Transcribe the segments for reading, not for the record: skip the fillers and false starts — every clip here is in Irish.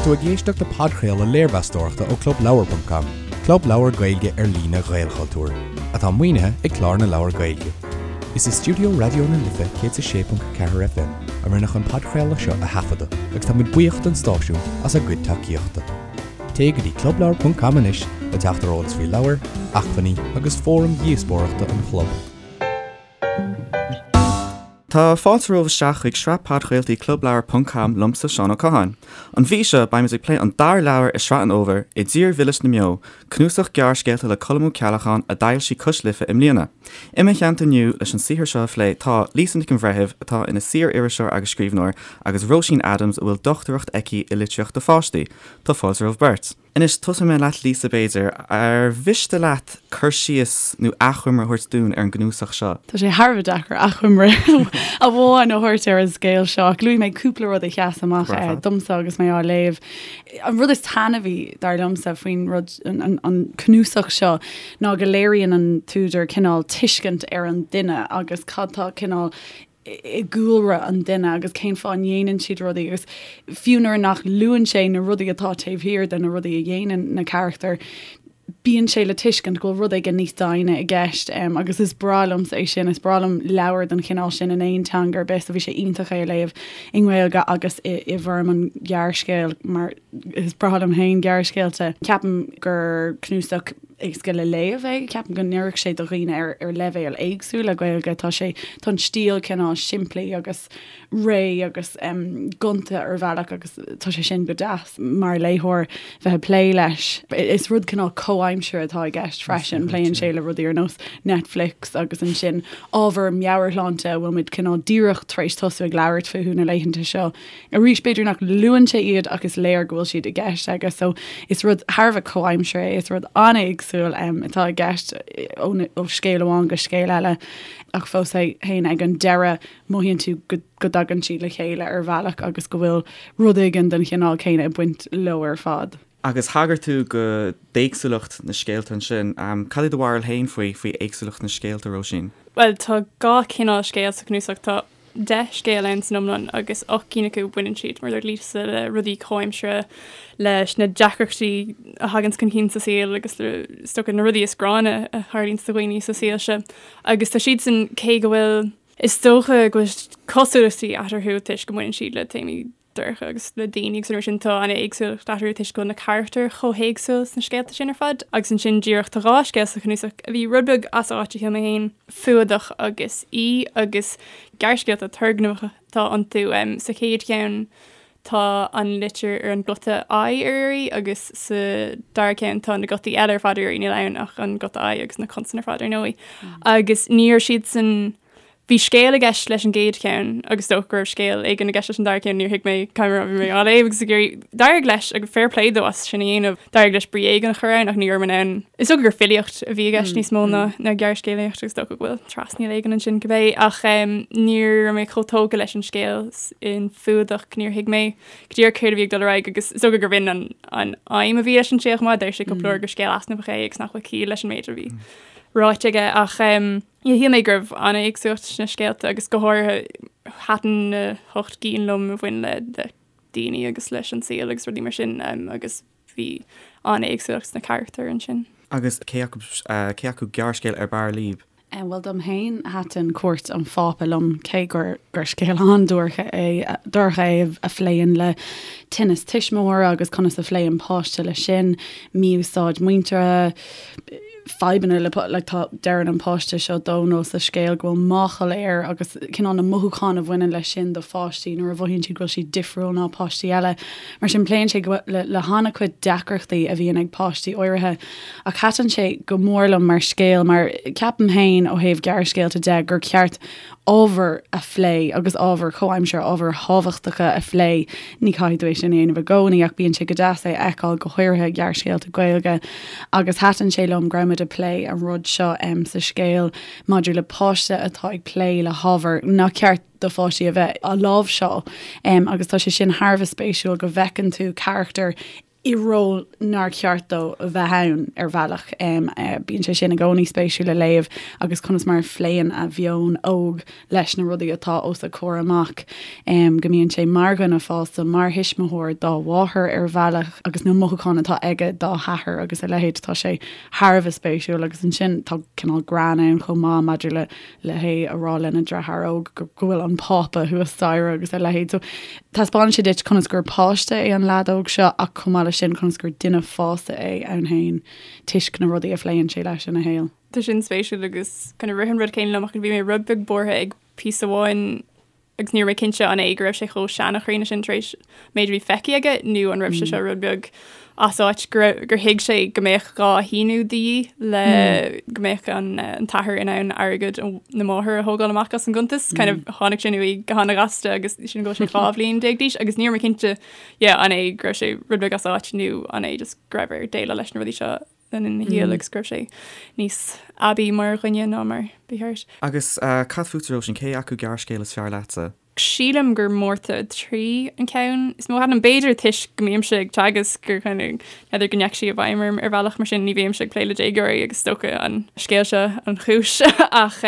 tú ag éisteacht le podchraoladh léirmheastóireachta ó ClubLeabhar.com, club leabhar Gaeilge ar líne Ghaelchultúir, atá maoinithe ag Clár na Leabhar Gaeilge. Is i stiúideo Raidió na Life 106.4 FM a rinneadh an podchraoladh seo a thaifeadadh agus tá muid buíoch don stáisiún as a gcuid tacaíochta. Téigh go dtí clubleabhar.com anois le teacht ar eolas faoi leabhair, acmhainní agus fóraim dhíospóireachta an chlub. Tá fáilte romhaibh isteach chuig sraith podchraoltaí Clubleabhar ponc com liomsa, Seán Ó Catháin. An mhí seo, beimid ag plé an dara leabhar i sraith an fhómhair, I dTír Mhilis na mBeo, cnuasach gearrscéalta le Colm Ó Ceallacháin a d'fhoilsigh Cois Life i mbliana. I mo theannta inniu leis an saothar seo a phlé tá, Lisa Nic an Bhreithimh, atá ina saor-iriseoir agus scríbhneoir, agus Róisín Adams, a bhfuil dochtúireacht aici i litríocht do pháistí. Tá fáilte romhaibh beirt. Anois, tosóidh mé leat Lisa, b'fhéidir. Ar mhiste leat cur síos nó achoimre a thabhairt dúinn ar an gcnuasach seo? Tá sé thar a bheith deacair achoimre amháin a thabhairt ar an scéal seo, ach luafaidh mé cúpla rud a sheas amach domsa agus mé á léamh. An rud is taitneamhaí, dar liomsa, faoin rud, an cnuasach seo ná go léiríonn an t-údar cineál tuiscint ar an duine agus cad tá cineál i gcúlra an duine agus cén fáth a ndéanann siad rudaí agus fiú nuair nach luann sé na rudaí atá taobh thiar de na rudaí a dhéanann na carachtair, bíonn sé le tuiscint go bhfuil rud éigin níos doimhne i gceist agus is breá liomsa é sin, is breá liom leabhair den chineál sin in aon teanga ar bith so bhí sé iontach é a léamh i nGaeilge agus i i bhfoirm an ghearrscéil mar is breá liom féin gearrscéalta. Ceapaim gur cnuasach éasca le léamh é. Ceapaim go n-oirfeadh sé do dhaoine ar ar leibhéal éagsúil le Gaeilge. Tá sé, tá an stíl cineál simplí agus réidh agus gonta ar bhealach agus tá sé sin go deas mar léitheoir bheith ag plé leis. Is rud cineál comhaimseartha atá i gceist freisin. Pléann sé le rudaí ar nós Netflix agus ansin ábhar meabhairshláinte a bhfuil muid cineál díreach tar éis tosú ag labhairt fúthu na laethanta seo. Arís, b'fhéidir nach luann sé iad ach is léir go bhfuil siad i gceist aige. So is rud thar a bheith comhaimseartha é, is rud an-éagsúil atá i gceist ó scéal amháin go scéal eile ach fós féin ag an deireadh mothaíonn tú go go dtagann siad le chéile ar bhealach agus go bhfuil rud éigin den chineál céanna ag baint leo ar fad. Agus thagair tú go d'éagsúlacht na scéalta ansin. Cad é do bharúil féin faoi faoi éagsúlacht na scéalta, Róisín? Bhuel, tá dhá chineál scéal sa chnuasach. Tá 10 scéal ann san iomlán agus 8 gcinn acu baineann siad, mar a dúirt Lisa, le rudaí comhaimseartha, leis na deacrachtaí a thaganns chun cinn sa saol agus le, is dócha, na rudaí is gránna a tharlaíonns do dhaoine sa saol seo. Agus tá siadsan, cé go bhfuil, is dócha go bhfuil cosúlachtaí eatarthu toisc go mbaineann siad le téamaí dorcha agus le daoine agus an rud sin, tá an-éagsúlacht eatarthu toisc go bhfuil na carachtair chomh héagsúil sna scéalta sin ar fad. Agus ansin díreach tá dhá scéal sa chnuasach a bhí rud beag as áit a shíl mé féin, Fuadach agus Í, agus gearrscéalta turgnamhacha atá iontu. Sa chéad cheann tá an litir ar an guta I ar iarraidh agus sa dara ceann tá na gutaí eile ar fad ar iarraidh, níl ann ach an guta I agus na consain ar fad ar ndóigh. Agus ní raibh siadsan Bhí scéal i gceist leis an gcéad cheann agus is dócha go raibh scéal éigin i gceist leis an dara ceann, níor thuig mé cad a bhí mé á léamh agus ag iarraidh. D'éirigh leis, agus fair play dó as sin a dhéanamh, d'éirigh leis brí éigin a chur ann ach ní raibh mé in ann. Is dócha gur filíocht a bhí i gceist níos mó ná ná gearrscéalaíocht agus is dócha go bhfuil trasnaíl éigin ansin cibé ach ní raibh mé chomh tógtha leis an scéal in Fuadach, níor thuig mé go díreach céard a bhí ag dul ar aghaidh agus is dócha gurbh in an an aidhm a bhí leis an scéal chomh maith, deir sé cúpla uair gur scéal easnamhach é agus nach bhfuil ciall leis an méid a bhí ráite aige ach. Shíl mé go raibh an-éagsúlacht sna scéalta agus go háirithe thaitin na hocht gcinn liom a bhain le daoine agus leis an saol agus rudaí mar sin agus bhí an-éagsúlacht sna carachtair ansin. Agus cé acu cé acu gearrscéal ar b'fhearr libh? Bhuel dom féin thaitin Cuairt an Phápa liom cé gur gur scéal an-dorcha é dorcha é a phléann le tinneas tuismitheora agus conas a phléann páiste leis sin, mí-úsáid muinteartha, fadhbanna le like tá deireann an páiste seo Dónal sa scéal go bhfuil máchail air agus cineál na mothúcháin a bhaineann leis sin do pháistí nuair a mhothaíonn siad go bhfuil siad difriúil ná páistí eile. Mar sin pléann sé le le han-chuid deacrachtaí a bhíonn ag páistí áirithe ach thaitin sé go mór liom mar scéal mar ceapaim féin ó thaobh gearrscéalta de gur ceart ábhar a phlé agus ábhair chomhaimseartha, ábhair thábhachtacha a phlé. Ní chaithfidh tú é sin a dhéanamh i gcónaí ach bíonn sé go deas é a fheiceáil, go háirithe i ngearrscéalta Gaeilge. Agus thaitin sé liom go raibh muid ag plé an rud seo sa scéal maidir le páiste atá ag plé le hábhar nach ceart do pháistí a bheith á láimhseáil. Agus tá sé sin thar a bheith spéisiúil go bhfeiceann tú carachtar. i ról nár cheart dó a bheith ann ar bhealach. Bíonn sé sin i gcónaí spéisiúil le léamh agus conas mar a phléann a mheon óg leis na rudaí atá os a chomhair amach, go mbíonn sé mar dhuine fásta, mar thuismitheoir dá mháthair ar bhealach agus na mothúcháin atá aige dá hathair agus a leithéid. Tá sé thar a bheith spéisiúil agus ansin tá cineál greann ann chomh maith maidir le le hé a rá lena dheartháir óg go bhfuil an Pápa thuas staighre agus a leithéid. So taispeánann sé duit conas gur páiste é an leaid óg seo ach chomh maith leis sin conas gur duine fásta é ann féin toisc na rudaí a phléann sé leis ina shaol. Tá sin spéisiúil agus kind of rith an rud céanna liom ach bhí mé rud beag buartha ag píosa amháin agus ní raibh mé cinnte an é go raibh sé chomh seanchríonna sin tar éis méid a bhí feicthe aige nó an raibh sé seo rud beag as áit go raibh gur thuig sé go mbeadh dhá shíniú de dhíth le go mbeadh an an t-athair in ann airgead na máthar a thógáil amach as an gcuntas. Kind of tháinig sin uaidh go han-ghasta agus sin go raibh sé 12 bhliain d'aois agus ní raibh mé cinnte yeah an é go raibh sé rud beag as áit nó an é just go raibh air déileáil leis na rudaí seo le linn a shaoil agus go raibh sé níos aibí mar dhuine ná mar ba cheart. Agus cad fútsa, Róisín, cé acu gearrscéal is fearr leatsa? Sílim gur Márta 3 an ceann is mó a thaitin liom, b'fhéidir toisc go mbímse ag teagasc gur kind of n'fheadar go ndeachaigh sí i bhfeidhm orm ar bhealach mar sin, ní bhímse ag plé le déagóirí agus is dócha an scéal seo an chúis ach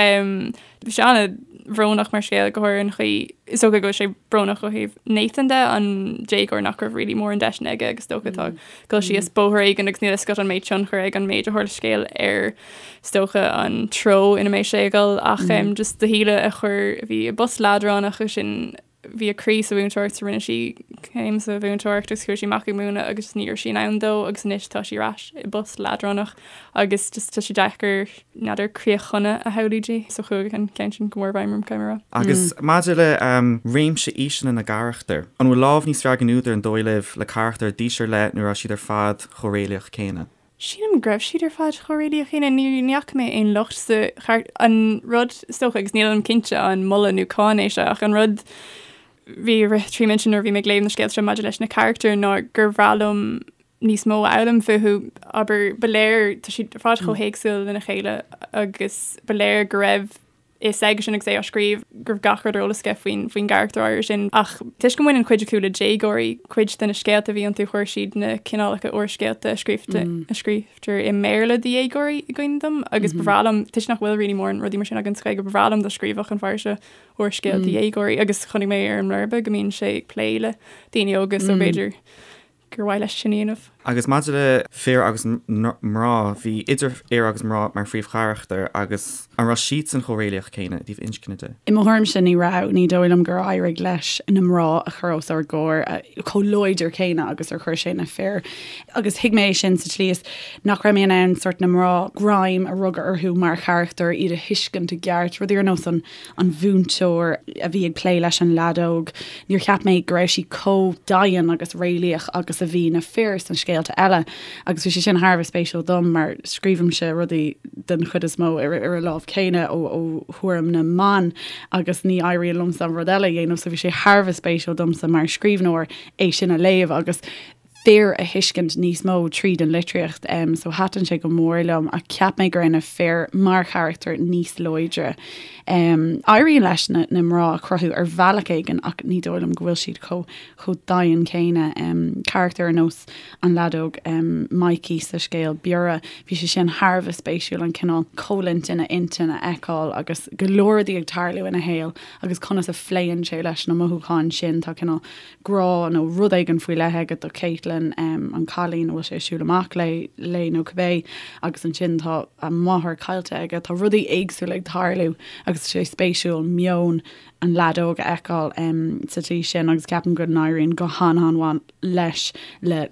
Bhí sé an-bhrónach mar scéal, go háirithe an chaoi, is dócha go bhfuil sé brónach ó thaobh Nathan de, an déagóir nach raibh really mórán deiseanna aige agus is dócha atá ag dul síos bóthar éigin agus níl a fhios agat an mbeidh tionchar ag an méid a tharla sa scéal ar is dócha an treo ina mbeidh sé ag dul ach just do Shíle a chuir, a bhí i bpost leadránach agus sin bhí a croí sa mhúinteoireacht so rinne sí céim sa mhúinteoireacht agus chuaigh sí amach ag múineadh agus ní raibh sí in ann dó agus anois tá sí ar ais i bpost leadránach agus just tá sé deacair n'fheadar críoch shona a shamhlú di so chuaigh an ceann sin go mór i bhfeidhm orm caithfidh mé a rá. Agus maidir le réimse aoiseanna na gcarachtar, an bhfuil lámh níos fearr ag an údar an dóigh libh le carachtair d'aois ar leith nó raibh siad ar fad chomh réalaíoch céanna? Sílim go raibh siad ar fad chomh réalaíoch céanna. Ní fhaca mé aon locht sa char-, an rud, is dócha, agus nílim cinnte an moladh nó cáineadh é seo, ach an rud bhí ag rith trí m'intinn nuair a bhí mé ag léamh na scéalta seo maidir leis na carachtair ná gur bhreá liom níos mó a fhoghlaim fúthu. Abair, ba léir, tá siad ar fad chomh héagsúil lena chéile agus ba léir go raibh fhios aigesean agus é á scríobh go raibh gach rud ar eolas aige faoin faoin gcarachtar áirithe sin. Ach toisc go mbaineann cuid acu le déagóirí, cuid de na scéalta a bhí iontu chuir siad na cineálacha úrscéalta a scríobhta a scríobhtar i mBéarla do dhéagóirí i gcuimhne dom agus ba bhreá liom, toisc nach bhfuil really mórán rudaí mar sin againn sa Ghaeilge, ba bhreá liom dá scríobhfadh an fear seo úrscéal do dhéagóirí agus chonaic mé ar an mblurba go mbíonn sé ag plé le daoine óga so b'fhéidir gur mhaith leis sin a dhéanamh. Agus maidir le fir agus mná, bhí idir fhir agus mná mar phríomhcharachtair agus an raibh siadsan chomh réalaíoch céanna i dtaobh inscne de? I mo thuairimse ní raibh. Ní dóigh liom gur éirigh leis na mná a chur os ár gcomhair chomh láidir céanna agus ar chuir sé na fir. Agus thuig mé é sin sa tslí is nach raibh mé in ann sort na mná greim a rugadh orthu mar charachtair, iad a thuiscint i gceart, rudaí ar nós an an mhúinteoir a bhí ag plé leis an leaid óg, níor cheap mé go raibh sí chomh daingean agus réalaíoch agus a bhí na fir sna scéalta eile agus bhí sé sin thar a bheith spéisiúil dom mar scríobhaimse rudaí den chuid is mó ar ar an lámh chéanna ó ó thuairim na mban agus ní éiríonn liomsa an rud eile a dhéanamh so bhí sé thar a bheith spéisiúil domsa mar scríbhneoir é sin a léamh agus fir a thuiscint níos mó tríd an litríocht so thaitin sé go mór liom ach cheap mé go raibh na fir mar charachtair níos láidre. Éiríonn leis na na mná a chruthú ar bhealach éigin ach ní dóigh liom go bhfuil siad chomh chomh daingean céanna. Carachtar ar nós an leaid óg Mikey sa scéal Biorra, bhí sé sin thar a bheith spéisiúil an cineál coimhlint ina intinn a fheiceáil agus go leor rudaí ag tarlú ina shaol agus conas a phléann sé leis na mothúcháin sin. Tá cineál grá nó rud éigin faoi leith aige do Caitlin, an cailín a bhfuil sé ag siúl amach léi nó cibé, agus ansin tá a máthair caillte aige. Tá rudaí éagsúla ag tarlú agus tá sé spéisiúil meon an leaid óg a fheiceáil sa tslí sin agus ceapaim go n-éiríonn go han-an-mhaith leis le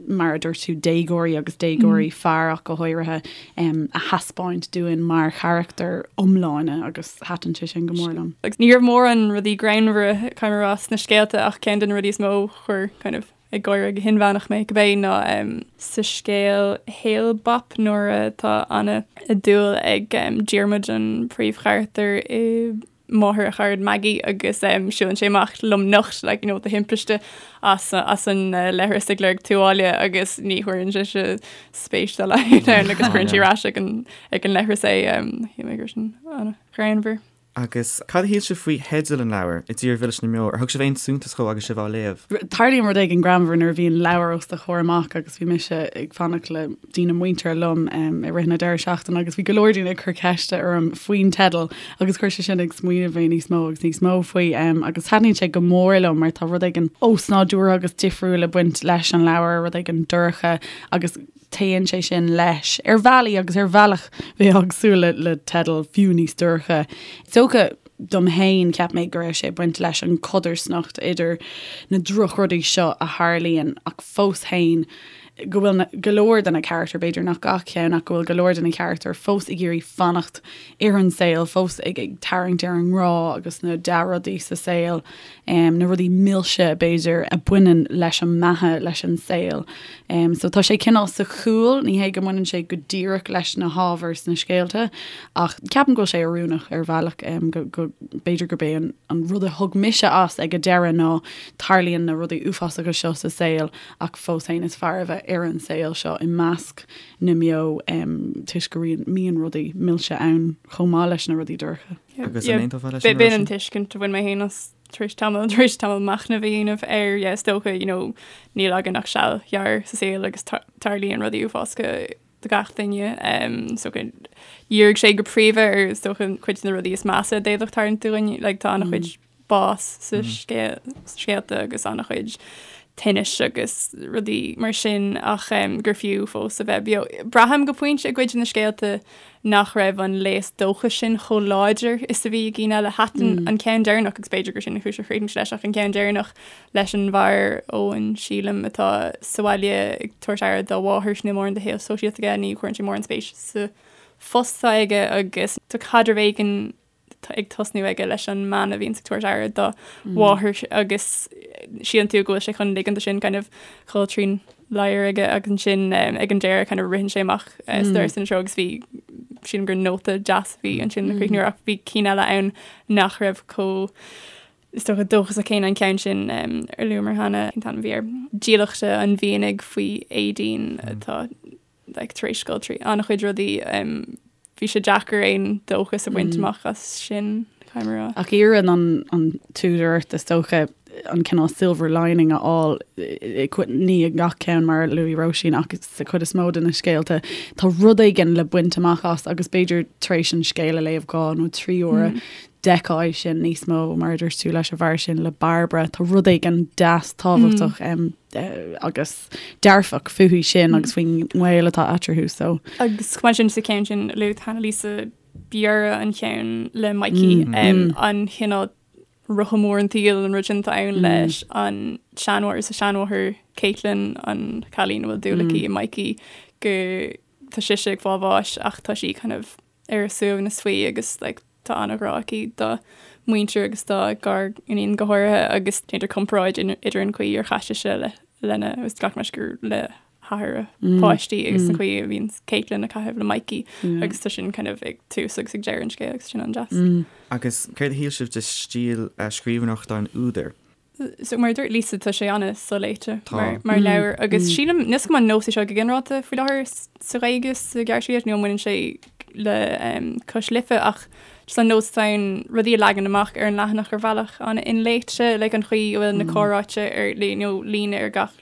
mar a dúirt tú, déagóirí agus déagóirí fear ach go háirithe, a thaispeáint dúinn mar charachtair iomlána agus thaitin sé sin go mór liom. Agus ní raibh mórán rudaí greannmhara, caithfidh mé a rá, sna scéalta ach ceann de na rudaí is mó a chuir kind of ag gáire go hinmheánach mé, cibé, ná sa scéal Hale-Bopp nuair atá an-dúil ag Diarmuid an príomhcharachtar i máthair a charad Maggie agus siúlann sé amach lomnocht like, you know, de thimpiste as, as an leithreas ag lorg tuáille agus ní chuireann sise spéis dá laghad ann agus cuireann sí ar ais ag an, ag an leithreas é. Shíl mé go raibh sin an-ghreannmhar. Agus cad a shíl sibh faoi theideal an leabhair, I dTír Mhilis na mBeo? Ar thug sibh aon suntas dhó agus sibh á léamh? Tarlaíonn rud éigin greannmhar nuair a bhíonn leabhar os do chomhair amach agus bhí mise ag fanacht le daoine muinteartha liom i rith na deireadh seachtaine agus bhí go leor daoine ag cur ceiste orm faoin teideal agus chuir sé sin ag smaoineamh mé níos mó agus níos mó faoi agus taitníonn sé go mór liom mar tá rud éigin osnádúrtha agus difriúil ag baint leis an leabhar, rud éigin dorcha agus Téann sé sin leis ar bhealaí agus ar bhealach bheifeá ag súil le teideal fiú níos dorcha. Is dócha dom féin, cheap mé go raibh sé ag baint leis an chodarsnacht idir na drochrudaí seo a tharlaíonn ach fós féin go bhfuil go leor de na carachtair, b'fhéidir nach gach ceann ach go bhfuil go leor de na carachtair fós ag iarraidh fanacht ar an saol, fós ag tarraingt ar an ngrá agus na dea-rudaí sa saol. na rudaí milse, b'fhéidir, a bhaineann leis an mbeatha, leis an saol. So tá sé cineál sa chúl, ní hé go mbaineann sé go díreach leis na hábhair sna scéalta, ach ceapaim go bhfuil sé oiriúnach ar bhealach, go, go, b'fhéidir gurb é an, an rud a thug mise as ag an deireadh ná tarlaíonn na rudaí uafásacha seo sa saol ach fós féin is fearr a bheith ar an saol seo i measc na mbeo toisc go mbíonn rudaí milse ann chomh maith leis na rudaí dorcha. Agus an aontófá leis sin? B'in an tuiscint a bhain mé féin as tar éis tamall, tar éis tamall machnaimh a dhéanamh air, yeah, is dócha, you know, níl againn ach seal ghearr sa saol agus tarlaíonn rudaí uafásacha do gach duine. Um, so dhírigh sé go príomha ar is dócha cuid de na rudaí is measa a d'fhéadfadh tarlúint dúinn, like, tá an-chuid bás sa scéalta agus an-chuid tinnis agus rudaí mar sin ach gur fiú fós a bheith beo. Braithim go pointe i gcuid de na scéalta nach raibh an léas dóchais sin chomh láidir is a bhí i gcinn eile. Thaitin an ceann deireanach, agus b'fhéidir gur sin an chúis ar chríochnaigh sé leis, ach an ceann deireanach leis an bhfear Eoin, sílim, atá sa bhaile ag tabhairt aire dá mháthair, níl mórán de shaol sóisialta aige, ní chuireann sé mórán spéis sa phost atá aige agus tá caidreamh éigin ag tosnú aige leis an mbean a bhíonns ag tabhairt aire dá mháthair agus síleann tú go bhfuil sé chun ligean dó sin kind of dhul trín ladhar aige agus ansin ag an deireadh kind of ritheann sé amach sa doras ina treo agus bhí sílim gur nóta deas a bhí ansin le críochnú ach bhí cinn eile ann nach raibh chomh is dócha dóchasach céanna an ceann sin ar luamar cheana cén t-ainm a bhí air Dílleachta an Mhianaigh faoi Aideen atá like, tar éis dul trí an-chuid rudaí, bhí sé deacair aon dóchas a bhaint amach as sin, caithfidh mé a rá. Ach iarrann an, an t-údar ort, is dócha, an cineál silver lining a fháil, ní i ngach ceann mar a luaigh Róisín ach sa chuid is mó de na scéalta, tá rud éigin le baint amach as agus b'fhéidir tar éis an scéal a léamh dhá nó trí huaire, d'fheicfeá é sin níos mó, mar a dúirt tú leis an bhfear sin, le Bairbre, tá rud éigin deas tábhachtach agus dearfach fúithi sin agus faoin ngaol atá eatarthu so. Agus chomh maith sin sa cheann sin luaigh cheana Lisa Biorra an ceann le Mikey an cineál rotha mór an tsaoil an rud sin atá ann leis an seanmháthair is a seanmháthair Caitlin an cailín a bhfuil dúil aici i Mikey go tá sise ag fáil bháis ach tá sí kind of ar a suaimhneas faoi agus like tá an-ghrá aici dá muintir agus dá gar-iníon go háirithe agus déantar comparáid idir an chaoi ar chaith sise le lena agus glacaim leis gur le hathair a páistí agus an chaoi a bhíonn Caitlin ag caitheamh le Mikey agus tá sin kind of ag tús agus ag deireadh an scéil agus sin an-deas. Agus céard a shíl sibh de stíl scríbhneoireachta an údair? So mar a dúirt Lisa tá sé an-soléite mar leabhar agus sílim níl a fhios agam an nós é seo go ginearálta faoi láthair sa Ghaeilge sa ghearrscéalaíocht nó an mbaineann sé le Cois Life ach just an nós atá ann rudaí a leagan amach ar an leathanach ar bhealach an-inléite like an chaoi a bhfuil na comhráite ar nó líne ar gach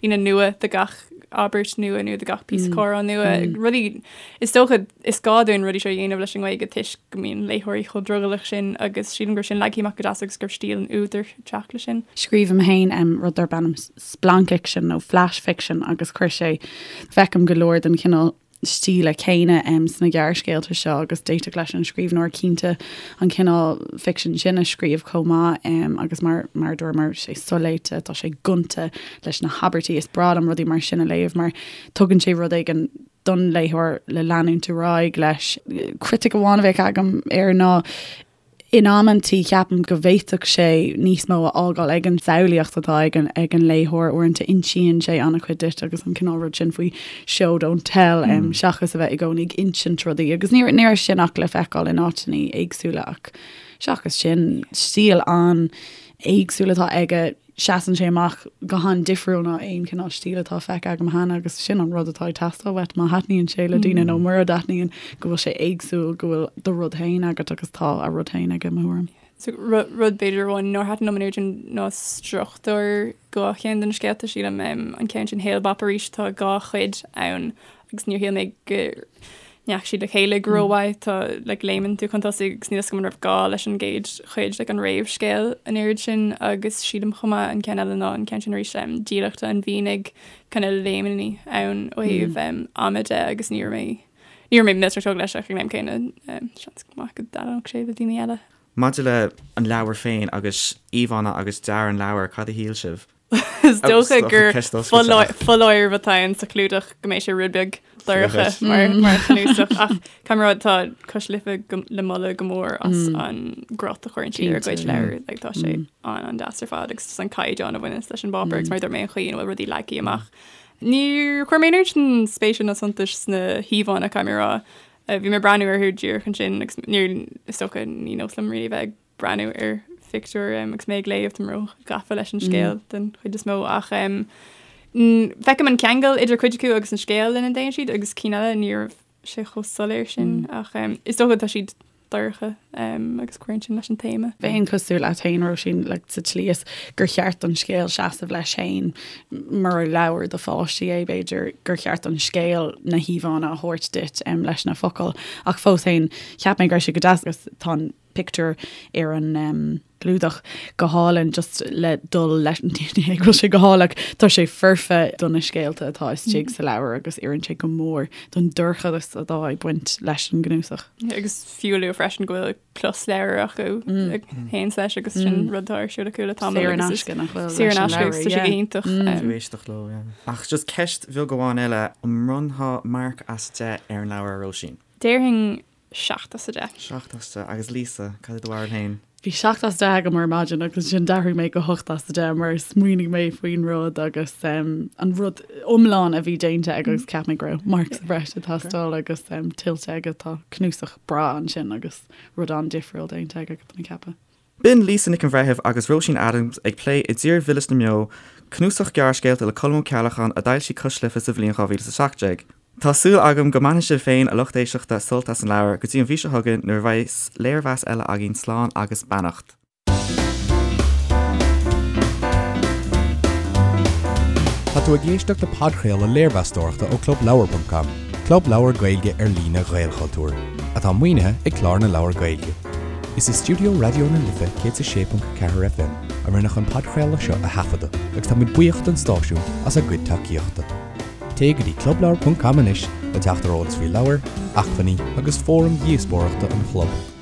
líne nua do gach abairt nua nó do gach píosa comhrá nua. Rudaí, is dócha, is gá dúinn rudaí seo a dhéanamh leis an nGaeilge toisc go mbíonn léitheoirí chomh drogallach sin agus sílim go raibh sin leagtha amach go deas agus go raibh stíl an údair ag teacht leis sin. Scríobhaim féin rud darb ainm splancfhicsean nó flash fiction agus chuir sé, feicim go leor den chineál stíle céanna sna gearrscéalta seo agus d'fhéadfadh leis an scríbhneoir cinnte an cineál ficsin sin a scríobh chomh maith agus mar mar a dúramar tá sé soléite, tá sé gonta leis na habairtí. Is breá liom rudaí mar sin a léamh mar tugann sé rud éigin don léitheoir le leanúint ar aghaidh leis. Critic amháin a bheadh agam air ná In amantaí, ceapaim go bhféadfadh sé níos mó a fhágáil ag an samhlaíocht atá ag an ag an léitheoir. Uaireanta insíonn sé an-chuid duit agus an cineál rud sin faoi show don't tell seachas a bheith i gcónaí ag insint rudaí. Agus ní ní raibh sin ach le feiceáil in áiteanna éagsúla ach seachas sin, stíl an-éagsúil atá aige. Seasann sé amach go han-difriúil ná aon chineál stíl atá feicthe agam cheana agus sin an rud atá ag teastáil uait má thaitníonn sé le daoine nó mura dtaitníonn, go bhfuil sé éagsúil, go bhfuil do rud féin agat agus tá a rud féin aige, mo thuairim. So rud b'fhéidir amháin nár thaitin liom an oiread sin ná struchtúr dhá cheann de na scéalta, sílim. An ceann sin Hale-Bopp arís, tá dhá chuid ann agus níor shíl mé go ndeachaigh siad le chéile go rómhaith. Tá like léimeann tú chun tosaigh agus níl a fhios agam an raibh gá leis an gcéad chuid, like an réamhscéal an oiread sin agus sílim chomh maith an ceann eile ná an ceann sin arís um, Dílleachta an Mhianaigh kind of léimeanna ann ó thaobh um, ama de agus ní raibh mé ní raibh mé millteanach tógtha leis ach ag an am céanna um, seans maith go dtaitneodh sé le daoine eile. Maidir le an leabhar féin agus íomhánna agus dearadh an leabhair, cad a shíl sibh? Is dócha gur foláireamh atá ann sa chlúdach go mbeidh sé rud beag dorcha mar mar chnuasach ach caithfidh mé a rá tá Cois Life le moladh go mór as an gcruth a chuireann siad ar a gcuid leabhar like tá sé an an-deas ar fad agus an caighdeán a bhaineanns leis an bpáipéar agus mar a dúirt mé an chaoi ina bhfuil rudaí leagtha amach. Níor chuir mé an oiread sin spéise ná suntais sna híomhánna caithfidh mé a rá. Bhí mé ag breathnú orthu díreach ansin agus níor is dócha ní nós liom really bheith ag breathnú ar phictiúir agus mé ag léamh, táim ró-ghafa leis an scéal den chuid is mó ach feicim an ceangal idir cuid acu agus an scéal lena dtéann siad agus cinn eile ní raibh sé chomh soiléir sin ach is dócha tá siad dorcha agus cuireann sin leis an téama. Bheinn cosúil leat féin, Róisín, like, sa tslí is gur cheart don scéal seasamh leis féin mura leabhar do pháistí é, b'fhéidir gur cheart don scéal na híomhánna a thabhairt duit leis na focail ach fós féin cheap mé go raibh sé go deas agus tá an pictiúr ar an gclúdach go hálainn just le dul leis ní hé go bhfuil sé go hálainn ach tá sé foirfe do na scéalta atá istigh sa leabhar agus oireann sé go mór don dorchadas atá ag baint leis an gcnuasach. Agus fiú a lua freisin go bhfuil closleabhar acu a théanns leis agus sin rud atá ar siúl acu le tamall Saor in aisce nach bhfuil Saor in aisce agus tá sé go hiontach. Fiú éisteacht leo, yeah. Ach just ceist bheag amháin eile, an mbronnfá marc as 10 ar an leabhar, a Róisín? Déarfainn 7 as 10. 7 as 10. Agus Lisa, cad é do bharúil féin? Bhí 7 as 10 agam ar maidin agus ansin d'athraigh mé go 8 as 10 mar smaoinigh mé faoin rud agus um, an rud iomlán a bhí déanta aige agus cheap mé go raibh marc sa bhreis ag teastáil agus um, tuillte aige tá cnuasach breá ansin agus rud an-difriúil déanta aige tá mé ag ceapadh. B'in Lisa Nic an Bhreithimh agus Róisín Adams ag plé I dTír Mhilis na mBeo, cnuasach gearrscéalta le Colm Ó Ceallacháin a d'fhoilsigh Cois Life sa bhliain 2017. Tá súil agam go mbainfidh sibh féin, a lucht éisteachta, sult as an leabhar. Go dtí an mhí seo chugainn nuair a bheas léirmheas eile againn, slán agus beannacht. Tá tú ag éisteacht le podchraoladh léirmheastóireachta ó ClubLeabhar.com, club leabhar Gaeilge ar líne Ghaelchultúir, atá maoinithe ag Clár na Leabhar Gaeilge. Is i stiúideo Raidió na Life 106.4 FM a rinneadh an podchraoladh seo a thaifeadadh agus táimid buíoch don stáisiún as a gcuid tacaíochta. Téigh go dtí clubleabhar.com anois le teacht ar eolas faoi leabhair, acmhainní agus fóraim dhíospóireachta an chlub.